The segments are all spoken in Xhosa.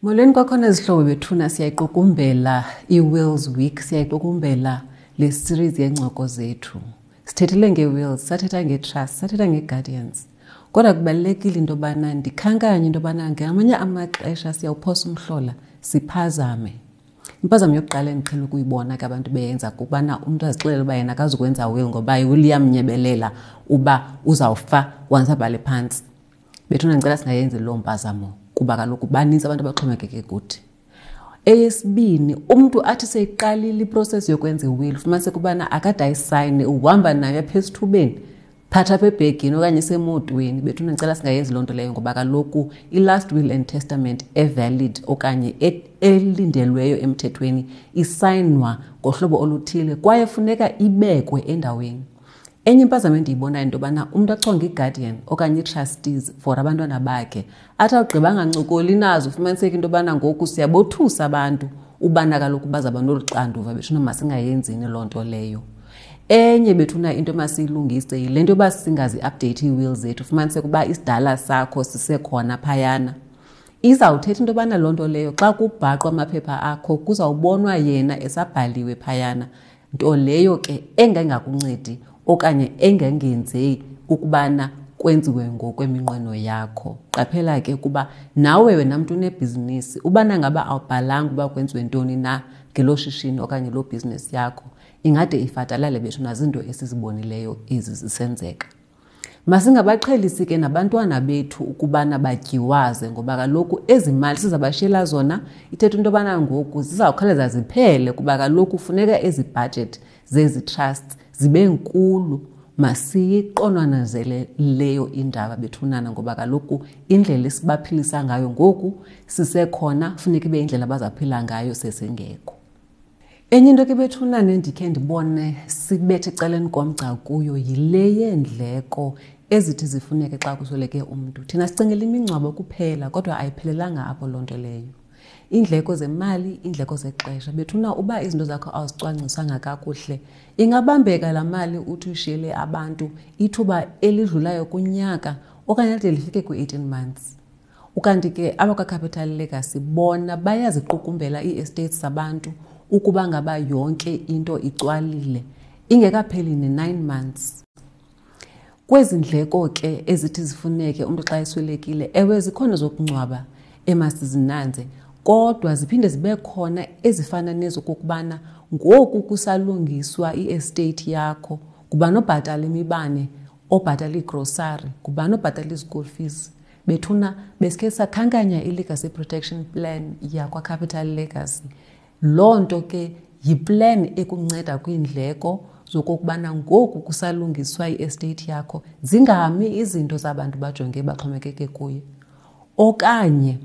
Molweni kwakhona zihlobo bethuna, siyayiqukumbela i-Wills Week, siyayiqukumbela le series yeencoko zethu. Sithethile ngee-wills, sathetha ngee-trust, sathetha ngee-guardians. Kodwa kubalulekile into yobana ndikhankanye into yobana ngamanye amaxesha siyawuphosa umhlola siphazame. Impazamo yokuqala endiqhela ukuyibona ke abantu beyenza kukubana umntu azixelele uba yena akazukwenza will ngoba iwill iyamnyebelela uba uzawufa once abhale phantsi. Bethuna ndicela singayenzi loo mpazamo kuba kaloku banintsi abantu abaxhomekeke kuthi. Eyesibini, umntu athi seyiqalile iprocess yokwenza iwill, ufumaniseke ubana akade ayisayine, uhamba nayo apha esithubeni, phatha apha ebhegini okanye isemotweni. Bethuna ndicela singayenzi loo nto leyo ngoba kaloku i-last will and testament evalid okanye elindelweyo emthethweni isayinwa ngohlobo oluthile kwaye funeka ibekwe endaweni. Enye impazamo endiyibonayo into yobana umntu achonge i-guardian okanye ii-trustees for abantwana bakhe, athi awugqiba angancokoli nazo, ufumaniseke into yobana ngoku siyabothusa abantu ubana kaloku bazawuba nolu xanduva. Bethuna masingayenzini loo nto leyo. Enye bethuna into emasiyilungise yile nto yoba singazi-update ii-will zethu, ufumaniseke uba isidala sakho sisekhona phayana. Izawuthetha into yobana loo nto leyo xa kubhaqwa amaphepha akho kuzawubonwa yena esabhaliwe phayana, nto leyo ke engengakuncedi okanye engengenzei ukubana kwenziwe ngokweminqweno yakho. Qaphela ke ukuba nawe wena mntu unebhizinisi, ubana ngaba awubhalanga uba kwenziwe ntoni na ngelo shishini okanye loo bhizinisi yakho, ingade ifatalale bethu nazinto esizibonileyo ezi zisenzeka. Masingabaqhelisi ke nabantwana bethu ukubana batyiwaze ngoba kaloku ezi mali sizabashiyela zona ithetha into yobana ngoku zizawukhawuleza ziphele kuba kaloku funeka ezi budget zezi trusts zibe nkulu. Masiyiqonwanazele leyo indaba bethunana ngoba kaloku indlela esibaphilisa ngayo ngoku sisekhona, funeka ibe indlela abazaphila ngayo sesingekho. Enye into ke bethunana endikhe ndibone sibethe ecaleni komgca kuyo yile yeendleko ezithi zifuneke xa kusweleke umntu. Thina sicingela imingcwabo kuphela kodwa ayiphelelanga apho loo nto leyo. Iindleko zemali, iindleko zexesha. Bethuna uba izinto zakho awuzicwangcisanga kakuhle, ingabambeka laa mali uthi uyishiyele abantu ithuba elidlulayo kunyaka okanye lide lifike kwi-18 months. Ukanti ke abakwaCapital Legacy bona bayaziqukumbela ii-estates zabantu ukuba ngaba yonke into icwalile ingekapheli ne-9 months. Kwezi ndleko ke ezithi zifuneke umntu xa eswelekile, ewe zikhona zokungcwaba emasizinanze, kodwa ziphinde zibe khona ezifana nezokokubana ngoku kusalungiswa i-estate yakho, ngubani obhatala imibane, obhatala iigrosari, ngubani obhatala i-school fees. Bethuna besikhe sakhankanya i-Legacy Protection Plan yakwaCapital Legacy. Loo nto ke yiplan ekunceda kwiindleko zokokubana ngoku kusalungiswa i-estate yakho zingami izinto zabantu bajonge baxhomekeke kuyo. Okanye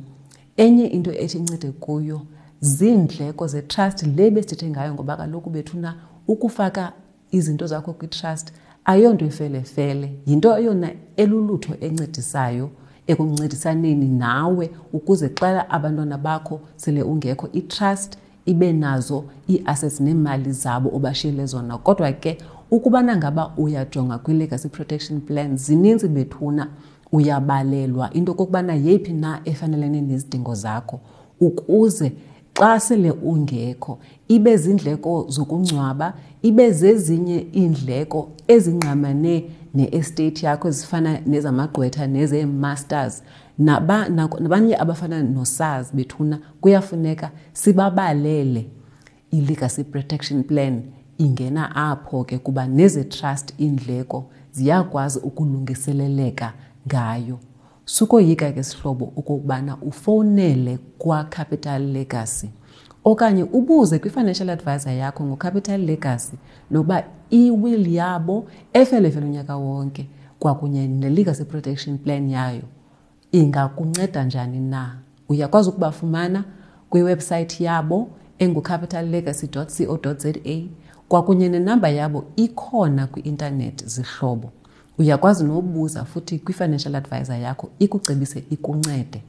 enye into ethi incede kuyo ziindleko zetrust le besithethe ngayo ngoba kaloku bethuna ukufaka izinto zakho kwitrust ayonto ifelefele, yinto eyona elulutho encedisayo ekuncedisaneni nawe ukuze xa abantwana bakho sele ungekho itrust ibe nazo ii-assets neemali zabo obashiyele zona. Kodwa ke ukubana ngaba uyajonga kwi-Legacy Protection Plan zininzi bethuna, uyabalelwa into okokubana yeyiphi na efanelene nezidingo zakho ukuze xa sele ungekho ibe zindleko zokungcwaba, ibe zezinye iindleko ezingqamane ne-estate yakho ezifana nezamagqwetha nezee-masters nabanye abafana noSARS bethuna kuyafuneka sibabalele. I-Legacy Protection Plan ingena apho ke kuba neze-trust iindleko ziyakwazi ukulungiseleleka ngayo. Sukoyika ke sihlobo okokubana ufowunele kwaCapital Legacy okanye ubuze kwi-financial advisor yakho ngoCapital Legacy nokuba i-will yabo efelefele unyaka wonke kwakunye ne-Legacy Protection Plan yayo ingakunceda njani na. Uyakwazi ukubafumana kwiwebsayithi yabo engucapitallegacy.co.za kwakunye nenamba yabo ikhona kwi-intanethi zihlobo. Uyakwazi nobuza futhi kwi-financial advisor yakho ikucebise ikuncede.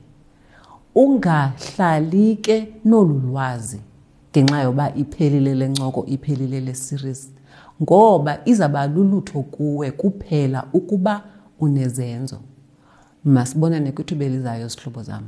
Ungahlali ke nolu lwazi ngenxa yoba iphelile le ncoko, iphelile le series, ngoba izawuba lulutho kuwe kuphela ukuba unezenzo. Masibonane kwithuba elizayo, zihlobo zam.